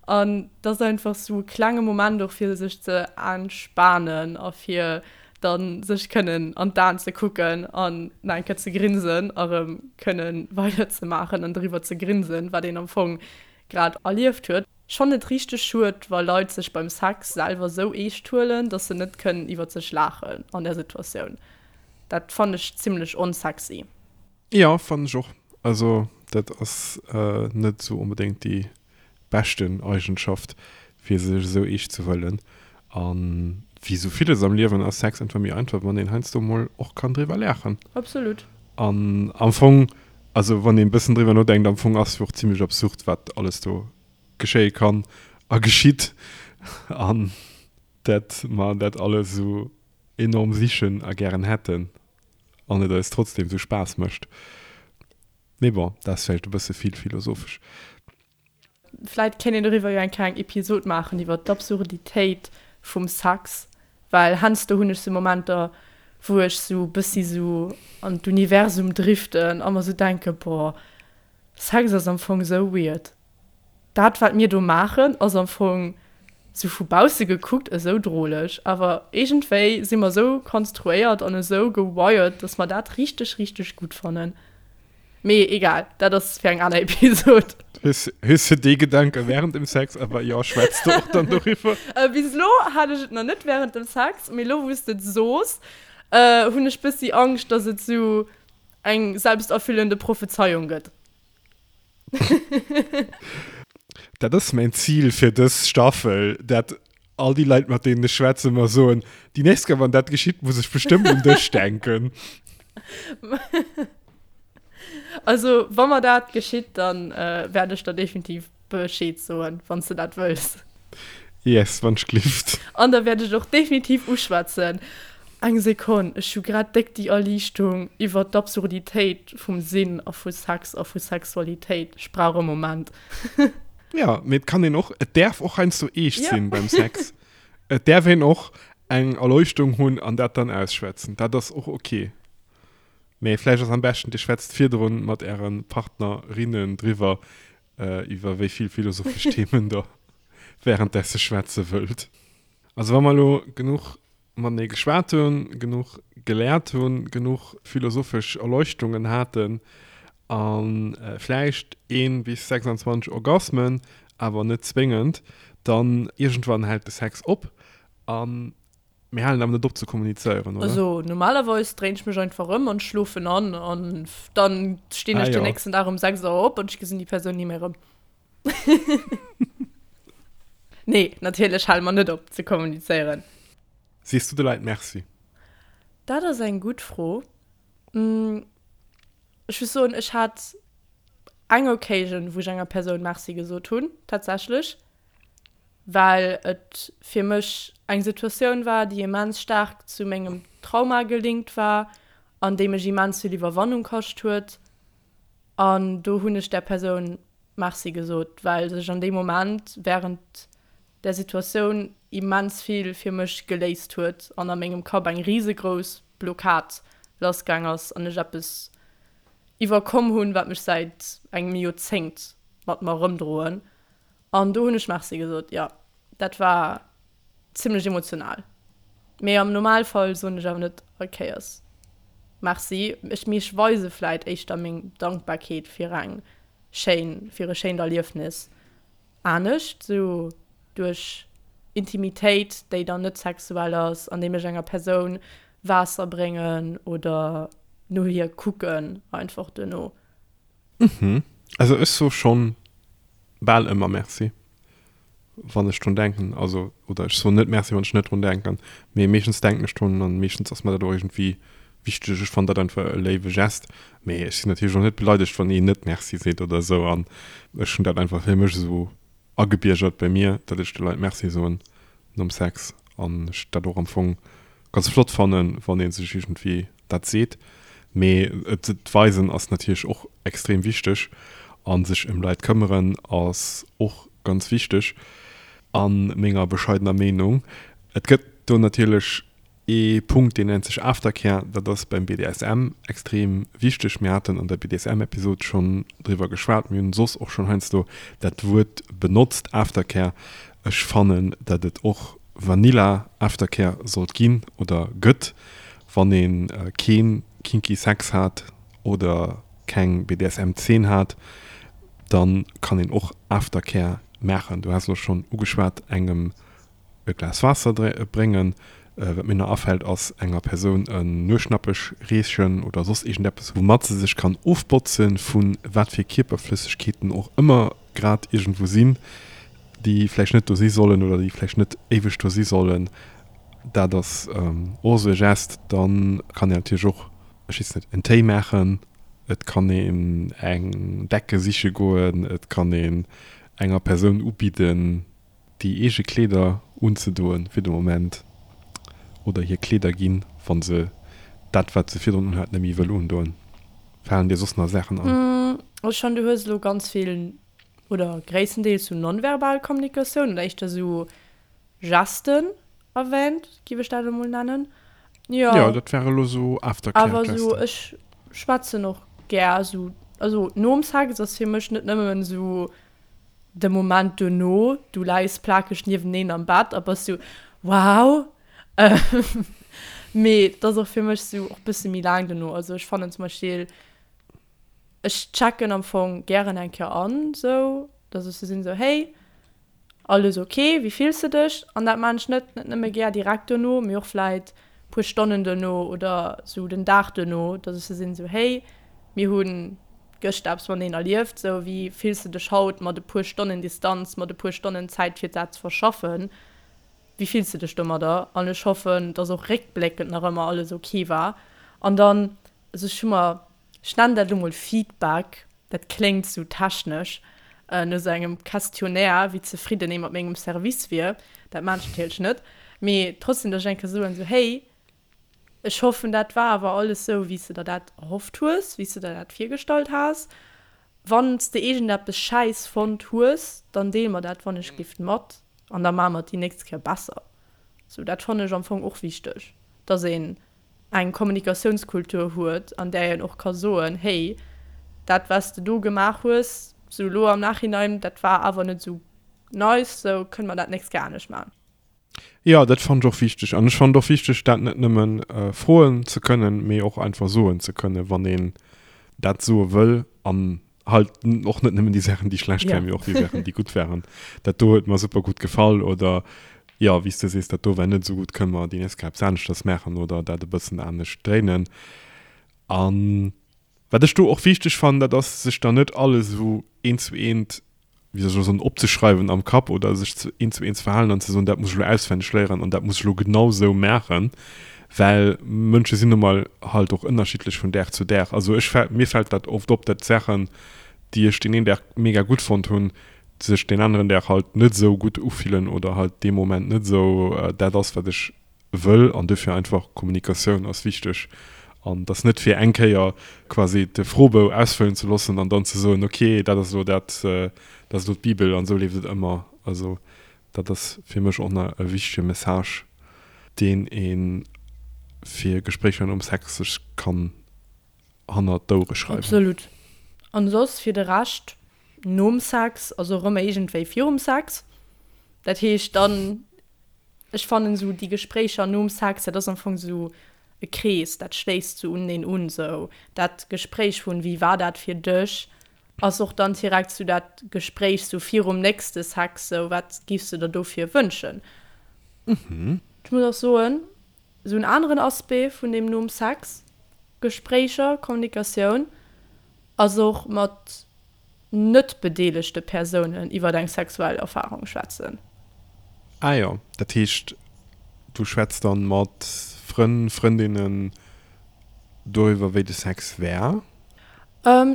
an dat ass einfach sou e klenge Moment och fir sech ze entspanen a fir dann sech kënnen an d'Aen ze kucken an nach eng Kéier ze grinsen a rëm kënnen weider ze maachen an driwwer ze grinsen, wat een am Fong grad erlieft huet. Ech fannen et richteg schued, wa Leit sech beim Sex selwer sou eescht huelen, dass se net kënnen iwwert sech laachen an där Situatioun. Dat fannen ech zimlech onsexy. Jo, fannen ech och. Also dat ass net sou onbedéngt déi beschten Eigenschaft fir sech esou eescht ze huelen. An wéi sou villes am Liewen ass Sex einfach méi einfach, wann een heiansdo mol och kann driwwer laachen. Absolut. An am Fong, also wann een bëssen driwwer nodenkt, am Fong ass jo och zimlech absurd wat alles do geschéie kann a geschitt an dat mer dat alles esou enorm sichen a gären hätten an et eis trotzdem esou Spaass mécht. Mee bon, dat ass vläicht e bësse vill philosophesch. Vläit kéint een doriwwer jo eng kleng Episod maachen, iwwer d'Absurditéit vum Sex, well heiansdo hunn ech sou Momenter, wou ech sou bëssi sou an d'Universum driften a mer sou denken, boah, Sex ass am Fong sou weird. Dat wat mir do maachen ass am Fong sou vu bausse gekuckt esou droleg, awer iergendwéi si mer esou konstruéiert an esou gewired, dass mer dat richteg, richteg gutt fannen. Mee egal, dat ass fir eng aner Episod. Hues, hues du dee Gedanke während dem Sex? Awer jo, schwätz du och dann doriwwer? Bis elo hat ech et nach net während dem Sex, mee elo wou s de et soos, hunn ech bëssi Angscht, dass et sou eng selbsterfüllende Prophezeiung gëtt. Dat ass mäin Zil fir dës Staffel, dat all déi Leit, mat deenen ech schwätzen, mer soen, déi nächst Kéier, wann dat geschitt, muss ech bestëmmt un dech denken. Also, wa mer dat geschitt, dann wäert ech der definitiv Bescheed soen, wann s de dat wëlls. Yes, wann ech glift. An da wäert ech et och definitiv uschwätzen. Eng Sekonn, ech hu grad déck déi Erliichtung iwwer d'Absurditéit vum Sinn a vu Sex a vu Sexualitéit. Ech brauch e Moment. Jo, mee et kann een och, et däerf och heiansdo eescht sinn beim Sex. Et däerf een och eng Erleuchtung hunn an dat dann ausschwätzen. Dat ass och ok. Mee vläicht ass am beschten, dir schwätzt virdrun mat äre Partnerinnen driwwer, iwwer wéi vill philosophesch Themen der währenddessen schwätze wëllt. Also wa mer elo genuch matenee geschwat hunn, genuch geléiert hunn, genuch philosophesch Erleuchtungen haten a vläicht ee bis 26 Orgasmen, awer net zwéngend, dann iergendwann hält de Sex op a Mir halen awer net op ze kommunizéieren, oder? Also normalerweis dréin ech mech einfach ëm an schlofen an an dann stinn ech ah, den nächsten Dag um 6 Auer op an ech gesinn déi Persoun ni méi erëm. Nee, natierlech hale mer net op ze kommunizéieren. Sees du de Leit Merci? Dat ass eng gutt Fro. Ech muss soen, ech hat eng Occasion, wou ech enger Persoun Merci gesot hunn, tatsächlech. well et fir mech eng Situatioun war, déi immens staark zu mengem Trauma gelinkt war an déi mech immens vill Iwwerwannung kascht huet. An do hunn ech där Persoun Merci gesot, well sech an deem Moment wärend där Situatioun immens vill fir mech geléist huet an a mengem Kapp eng risegrouss Blockad lassgaang ass an ech eppes iwwerkomm hunn, wat mech säit engem Joerzéngt mat mer erëmdroen. An do hunn ech Merci gesot, jo. Dat war zimmlech emotional. Mee am Normalfall soen ech awer net all Kéiers Merci. Ech, mee ech weise vläit éischter meng Dankbarkeet fir eng schéin, fir e schéint Erliefnis anescht, sou duerch Intimitéit, déi dann net sexuell ass, andeem ech enger Persoun Waasser bréngen oder no hir kucken einfach duerno. Mhm. Also ech soe schonn bal ëmmer Merci, wann ech drun denken. Also, oder ech soen net Merci, wann ech net drun denken, mee meeschtens denken ech drun an meeschtens ass mer dat och iergendwéi wichteg. Ech fannen dat einfach e léiwe Gest. Mee ech sinn natierlech och net beleidegt, wann een net Merci seet oder esou. An ech hunn dat einfach fir mech esou agebiergert bei mir, datt ech de Leit Merci soen nom Sex an ech dat och am Fong ganz flott fannen, wann ee sech iergendwéi dat seet. Mee et weisen ass natierlech och extrem wichteg a sech ëm Leit këmmeren ass och ganz wichteg a menger bescheidener Meenung. Et gëtt do natierlech Ee Punkt, deen nennt sech Aftercare. Dat ass beim BDSM extrem wichteg. Mir haten an der BDSM-Episod schonn driwwer geschwat. Mir hunn soss och schonn heiansdo dat Wuert benotzt, Aftercare. Ech fannen, datt et och Vanilla Aftercare sollt ginn oder gëtt, wann ee kee kinky Sex hat oder keng BDSM-Zeen hat, da kann een och Aftercare maachen. Du has elo schonn ugeschwat, engem e Glas Waasser bréngen. Wat mir nach afält ass enger Persoun en Nueschnappech reechen oder soss iergendeppes woumat se sech kann ofbotzen vu wat fir Kierperflëssegkeeten och ëmmer grad iergendwou sinn, déi vläicht net do si sollen oder déi vläicht net éiweg do si sollen. Dat ass och esou e Gest. Dann kann een natierlech och, ech weess net, en Téi maachen, et kann een eng Decke siche goen, et kann een enger Persoun ubidden, déi eege Kleeder unzedoen fir de Moment oder hir Kleeder ginn, wa se dat, wat se virdrun unhat, net méi wëll undoen. Falen dir soss nach Saachen an? Ech fannen, du hues elo ganz vill oder gréisstendeels sou nonverbal Kommunikatioun oder éischter sou Gesten erwähnt, giff ech dat elo mol nennen. Jo. Jo, dat ware elo sou Aftercare-Gesten. Awer sou, ech schwätzen och gär sou, also nom Sex ass fir mech net nëmmen sou De Moment duerno, du läis plakeg nieweneen am Bett a bass sou, Wow! Mee et ass och fir mech sou och bësse méi laang duerno. Also ech fannen zum Beispill. Ech checken am Fong gären eng Kéier an, sou dass ech sou sinn, sou hey, alles ok, wéi fills de dech? An dat maan ech net net nëmme gär direkt dono, mee och vläit puer Stonnen dono oder sou den Dag dono, dass ech sou sinn, sou hey, mir hu gëschter eppes mateneen erlieft, sou wéi fills de dech haut mat e puer Stonnen Distanz, mat e puer Stonnen Zäit fir dat ze verschaffen, wéi fills de dech domadder? An ech hoffen, dass och réckbléckend nach ëmmer alles ok war. An dann, also ech hu mer Ech nennen dat elo mol Feedback, dat kléngt sou technesch, no sou engem Questionnaire, wéi zefridden ee mat mengem Service wier. Dat maan ech natierlech net, mee trotzdem, dass ech eng Kéier soen, sou, hey, ech hoffen, dat war awer alles sou, wéi s de der dat erhofft hues, wéi s de der dat virgestallt has. Wann s de iergendeppes schäiss fonnt hues, dann deel mer dat wannechgelift mat an da maache mer et déi nächst Kéier besser. Sou, dat fannen ech am Fong och wichteg, dass een eng Kommunikatiounskultur huet, an där een och ka soen, hey, dat wat s de do gemaach hues, sou elo am Nachhinein, dat war awer net esou nice, sou kënne mer dat d'nächst Kéier anescht maachen. Jo, dat fannen ech och wichteg. An ech fannen et och wichteg, dat net nëmme froen ze kënnen, mee och einfach soen ze kënnen, wann een dat soe wëll. An halt och net nëmmen déi Saachen, déi schlecht waren, mee och déi Saachen, déi gutt waren. Dat do huet mer super gutt gefall oder jo, wéi s de sees, dat do war net esou gutt, kënne mer déi nächst Kéier eppes aneschters maachen oder dat e bëssen anescht dréinen. A wat ech do och wichteg fannen, dat ass, sech dann net alles esou eent zu eent wéi soll ech elo soen, opzeschreiwen am Kapp oder sech ze eent zu eent ze verhalen an ze soen, dat muss ech elo auswenneg léieren an dat muss ech elo genau esou maachen, well Mënsche sinn nu mol halt och ënnerschiddlech vun Dag zu Dag. Also ech fält, mir fält dat oft op, dat Saachen, déi ech deen een Dag mega gutt fonnt hunn, sech deen aneren Dag halt net esou gutt ufillen oder halt dee Moment net esou dat ass, wat ech wëll an duerfir einfach Kommunikatioun ass wichteg an dass net fir eng Kéier quasi de Froebou ausfëllen ze loossen an dann ze soen, ok dat ass elo dat, dat ass elo d'Bibel an esou leeft et ëmmer. Also dat ass fir mech och nach e wichtege Message, deen ee fir Gespréicher nom Sex sech kann hannert d'Ouere schreiwen. Absolut. An soss fir de Rescht nom Sex ass och ëmmer iergendwéi virum Sex. Dat heescht dann, ech fannen esou déi Gespréicher nom Sex, dat ass am Fong esou e Krees, dat schléisst sou uneneen un. Sou dat Gespréich vun wéi war dat fir dech, ass och dann direkt sou dat Gespréich sou virum nächste Sex, sou wat giffs de der dofir wënschen. Ech muss och soen, Esou en aneren Aspect vun deem nom Sex, Gespréicher, Kommunikatioun, ass och mat net bedeelegte Persounen iwwer eng sexuell Erfarung schwätzen. Ah jo, dat heescht du schwätz dann mat Frënn, Frëndinnen doriwwer wéi de Sex war?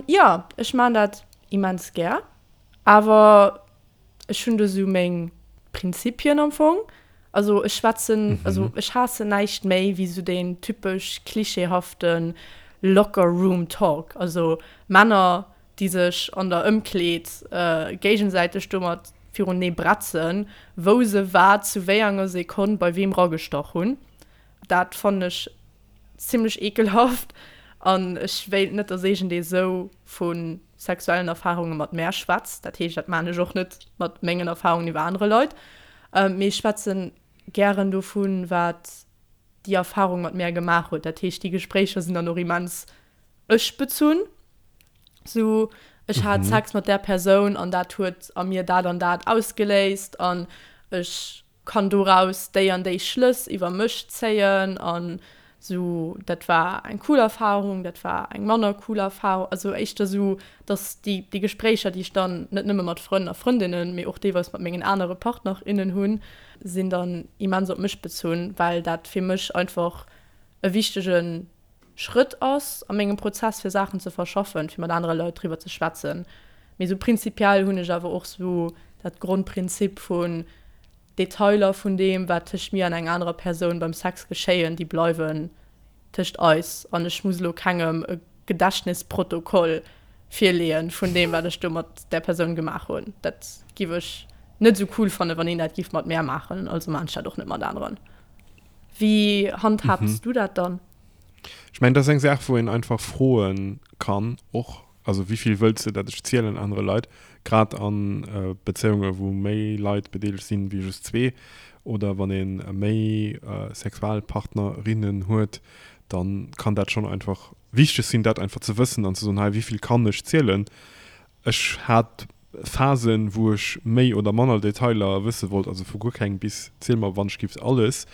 Jo, ech maan dat immens gär, awer Ech hunn do sou meng Prinzipien am Fong. Also ech schwätzen, also ech haassen näischt méi wéi sou deen typesch klischeehafte Locker Room Talk. Also Männer, déi sech an der Ëmkleed géigesäiteg domat virunee bretzen, wou se wat zu wéi enger Sekonn bei weem ragestach hunn. Dat fannen ech zimmlech ekelhaft an ech wéilt net, dass iergendee sou vu sexuellen Erfarunge mat mär schwätzt. Dat heescht, dat maan ech och net mat mengen Erfarungen iwwer anere Leit. Mee ech schwätzen gären dovun, wat déi Erfarung mat mär gemaach huet. Dat heescht, déi Gespréicher sinn dann och immens ech-bezunn. Sou, ech hat Sex mat där Persoun an dat huet a mir dat an dat ausgeléist an ech kann doraus déi an déi Schlëss iwwer mech zéien an sou dat war eng cool Erfahrung, dat war eng manner cool Erfahrung, also éischter sou, dass déi déi Gespréicher, déi ech dann net nëmme mat Frënn a Frëndinnen, mee och deelweis mat mengen anere Partner, innen hunn, sinn dann immens op mech bezunn, well dat fir mech einfach e wichtege Schrëtt ass a mengem Prozess fir Saachen ze verschaffen, fir mat anere Leit driwwer ze schwätzen. Mee sou prinzipiell hunn ech awer och sou dat Grondprinzip vun Detailer vun deem wat tëscht mir an enger anerer Persoun beim Sex geschéien, déi bleiwen tëscht eis an ech muss elo kengem e Gedächtnisprotokoll virleeën vun deem wat ech do mat där Persoun gemaach hunn. Dat giff ech net sou cool fannen, wann een dat giff mat mär maachen, also maan ech dat och net mat aneren. Wéi handhabs du dat dann? Ech mengen, dat ass eng Saach, wou een einfach froe kann och. Also wéi vill wëlls de, dat ech zielen anere Leit? Grad a Bezéiunge wou méi Leit bedeelegt sinn wéi just zwee oder wann ee méi Sexualpartnerinnen huet, da kann dat schonn einfach. wichteg sinn, dat einfach ze wëssen an ze soen, hei, wéi vill kann ech zielen. Ech hat Phasen, wou ech méi oder manner Detailer wësse wollt, also vu guer keng bis ziel mer wann ech giff alles.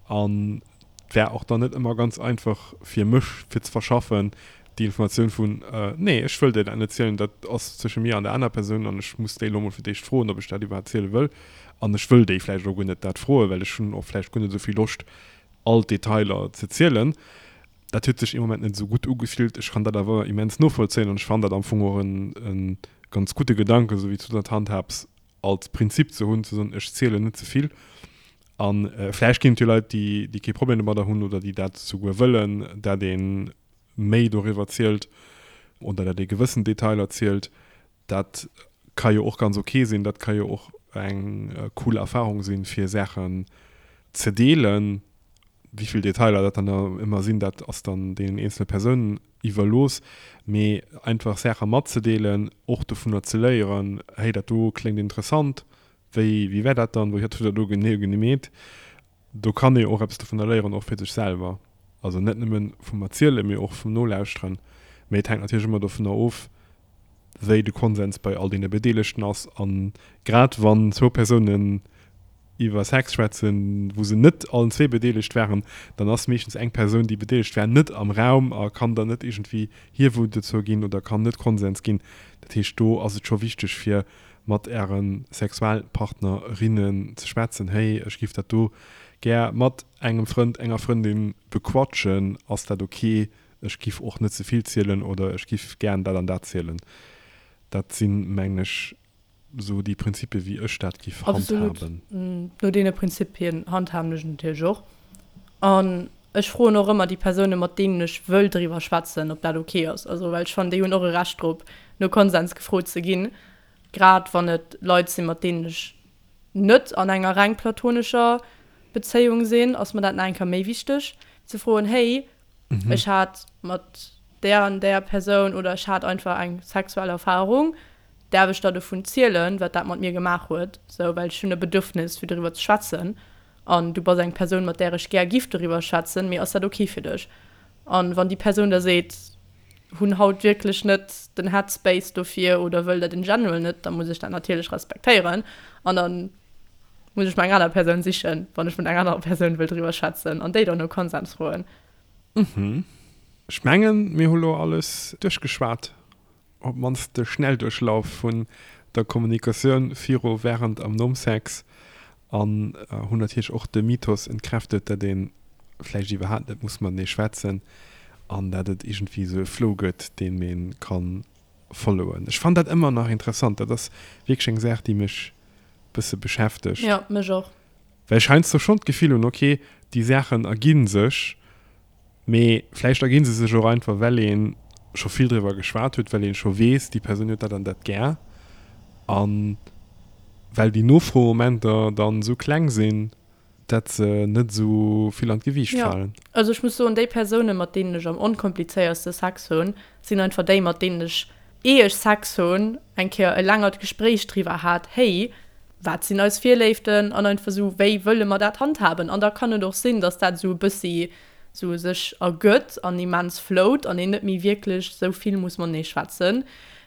An et war och dann net ëmmer ganz einfach fir mech fir ze verschaffen, déi Informatioun vun, nee ech wëll dir dat net zielen, dat ass zwësche mir an der aner Persoun an ech muss déi elo mol fir d'éischt froen, ob ech dat iwwerhaapt ziele wëll. An ech wëll déi vläicht och guer net dat froen, well ech hunn och vläicht guer net esou vill Loscht all d'Detailer ze zielen. Dat huet sech ee Moment net esou gutt ugefillt. Ech kann dat awer immens novollzéien an ech fannen dat am Fong och e ganz gudde Gedanken, esou wéi s du dat handhabs, als Prinzip ze hunn, ze soen, ech zielen net ze vill. A vläicht ginn et jo Leit, déi, déi kee Problem domadder hunn oder déi dat souguer wëllen, dat ee méi doriwwer zielt oder dat ee gewëssen Detailer zielt. Dat ka jo och ganz ok sinn, dat ka jo och eng cool Erfahrung sinn, fir Saachen ze deelen. Wéi vill Detailer dat dann ëmmer sinn, dat ass dann deenen eenzele Persounen iwwerlooss. Mee einfach Saache matzedeelen, och dovunner ze léieren, hey dat do kléngt interessant, wéi wéi war dat dann, wéi hutt der dat do genee gemeet? Do kann ee och eppes dovunner léieren, och fir sech selwer. Also net nëmme vum Erzielen, mee och vum Nolauschteren. Mee et hänkt natierlech ëmmer dovunner of, wéi de Konsens bei all deene Bedeelegten ass. A grad wann zwou Persounen iwwer Sex schwätzen, wou se net allen zwee bedeelegt waren, dann ass meeschtens eng Persoun, déi bedeelegt war, net am Raum a kann dann net iergendwéi hir Vote dozou ginn oder kann net Konsens ginn. Dat heescht, do ass et scho wichteg, fir mat Äre Sexualpartnerinnen ze schwätzen, Hey, ech giff dat do gär mat engem Frënd, enger Frëndin bequatschen, ass dat ok? Ech giff och net ze vill zielen oder ech giff gären dat an dat zielen. Dat sinn, mengen ech, sou déi Prinzipien, wéi ech dat giff Absolut. handhaben. No deene Prinzipien handhaben ech et natierlech och. An ech froen och ëmmer déi Persounen, mat deenen ech wëll driwwer schwätzen, ob dat ok ass. Also, well ech fannen, déi hunn och e Recht drop, no Konsens gefrot ze ginn, grad wann et Leit sinn, mat deenen ech net an enger reng platonescher Bezéiung sinn, ass mer dat nach eng Kéier méi wichteg, ze froen, Hey, ech hat mat där an där Persoun oder ech hat einfach eng sexuell Erfarung, däerf ech der dovun zielen, wat dat mat mir gemaach huet, sou, well ech hunn e Bedürfnis, fir doriwwer ze schwätzen an du bass eng Persoun, mat där ech gär giff doriwwer schwätzen, mee ass dat ok fir dech? An wann déi Persoun da seet, hunn haut wierklech net den Headspace dofir oder wëll dat in general net, da muss ech dat natierlech respektéieren an da muss ech mer eng aner Persoun sichen, wann ech mat enger anerer Persoun wëll driwwer schwätzen an déi dann no Konsens froen. Mhm. Ech mengen, mir hu lo alles duerchgeschwat, op d'mannst de Schnellduerchlauf vun der Kommunikatioun viru, wärend am nom Sex an hunn natierlech och de Mythos entkräftet, dat ee vläicht iwwerhaapt net muss matenee schwätzen an dat et iergendwéi esou e Flow gëtt, deem ee ka followen. Ech fannen dat ëmmer nach interessant. Dat ass wierklech eng Saach, déi mech bësse beschäftegt. Jo, mech och. Well ech heiansdo schonn d'Gefill hunn, ok, déi Saachen ergi sech, mee vläicht ergi se sech och einfach, well ee scho vill driwwer geschwat huet, well ee scho weess, déi Persoun huet dat an dat gär a well déi Nofroemomenter dann esou kleng sinn, dat se net esou vill an d'Gewiicht Jo, falen. also ech muss soen, déi Persounen, mat deenen ech am onkomplizéierste Sex hunn, sinn einfach déi, mat deenen ech, ier ech Sex hunn, eng Kéier e längert Gespréich driwwer hat, Hey, wat sinn eis Virléiften an einfach esou, wéi wëlle mer dat handhaben? An da kann et och sinn, dass dat esou e bëssi esou sech ergëtt an immens flowt an een net méi wierklech esou vill muss matenee schwätzen.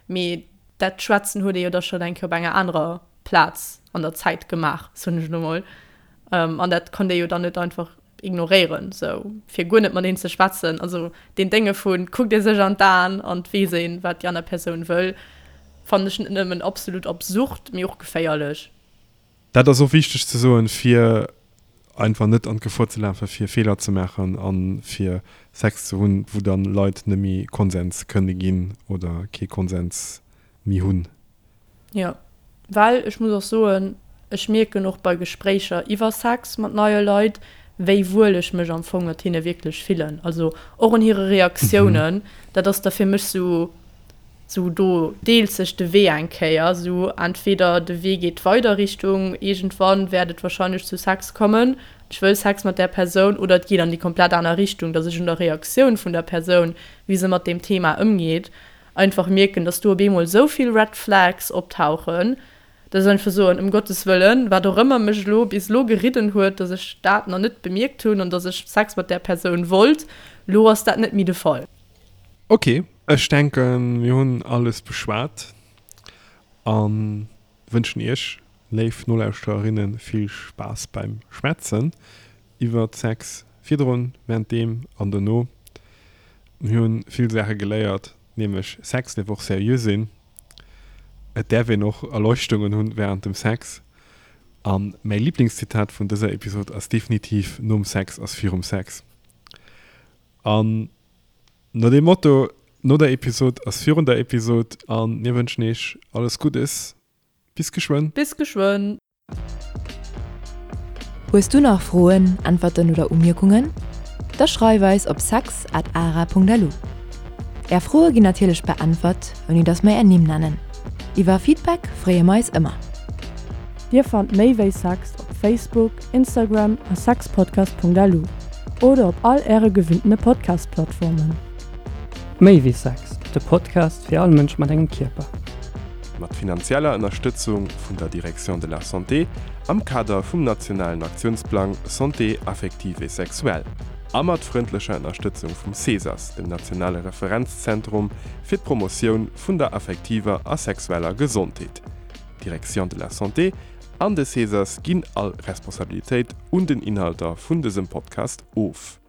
Mee dat Schwätzen huet ee jo da schonn eng Kéier op enger anerer Plaz an der Zäit gemaach, soen ech elo mol. An dat konnt ee jo dann net einfach ignoréieren, sou fir guer net mat een ze schwätzen. Also deen Dénge vu kuckt ee sech an d'Aen an et weess een, wat déi aner Persoun wëll, fannen ech net nëmmen absolut absurd, mee och geféierlech. Dat ass och wichteg ze soen, fir einfach net an d'Gefor ze lafen, fir Feeler ze maachen a fir Sex ze hunn, wou dann Leit net méi Konsens kënne ginn oder kee Konsens méi hunn. Jo, well ech muss och soen, ech mierken och bei Gespréicher iwwer Sex mat neie Leit, wéi wuel ech mech am Fong mat hinne wierklech fillen. Also och un hire Reaktiounen, dat ass da fir mech sou, sou do deelt sech de Wee eng Kéier, sou entweder de Wee geet weider Richtung iergendwann wäert et wahrscheinlech zu Sex kommen, ech wëll Sex mat där Persoun, oder et geet an déi komplett aner Richtung, dass ech un der Reaktioun vun der Persoun, wéi se mat deem Thema ëmgeet, einfach mierken, dass do op eemol esou vill Red Flags optauchen, dass ech einfach soen, ëm Gottes Wëllen, wat och ëmmer mech elo bis elo geridden huet, dass ech dat nach net bemierkt hunn an dass ech Sex mat där Persoun wollt, elo ass dat net méi de Fall. Ok, ech denken mir hunn alles beschwat an wënschen iech, léif Nolauschtererinnen, vill Spaass beim Schwätzen iwwert Sex virdrun, währenddeem an dono. Mir hunn vill Saache geléiert, nämlech Sex däerf och seriö sinn, et däerf een och Erleuchtungen hunn während dem Sex an mäi Liblingszitat vun dëser Episod ass definitiv Nom Sex ass virum Sex. An no deem Motto, no der Episod ass virun der Episod an mir wënschen iech alles Guddes. Bis geschwënn. Bis geschwënn. Hues du nach Froen, Äntwerten oder Umierkungen? Da schreif eis op sex at ara.lu. Är Froe ginn natierlech beäntwert, ouni dass mer är Nimm nennen. Iwwer Feedback freeë mer eis ëmmer. Dir fannt méi wéi Sex op Facebook, Instagram a sexpodcast.lu oder op all äre gewinntene Podcast-Plattformen. Méi wéi Sex, de Podcast fir all Mënsch mat engem Kierper. Mat finanzieller Ënnerstëtzung vun der Direction de la Santé am Kader vum nationalen Aktiounsplang Santé affective et sexuelle a mat frëndlecher Ënnerstëtzung vum CESAS, dem nationale Referenzzentrum fir d'Promotioun vun der affektiver a sexueller Gesondheet. D'Direction de la Santé an de CESAS ginn all Responsabilitéit un den Inhalter vun dësem Podcast of.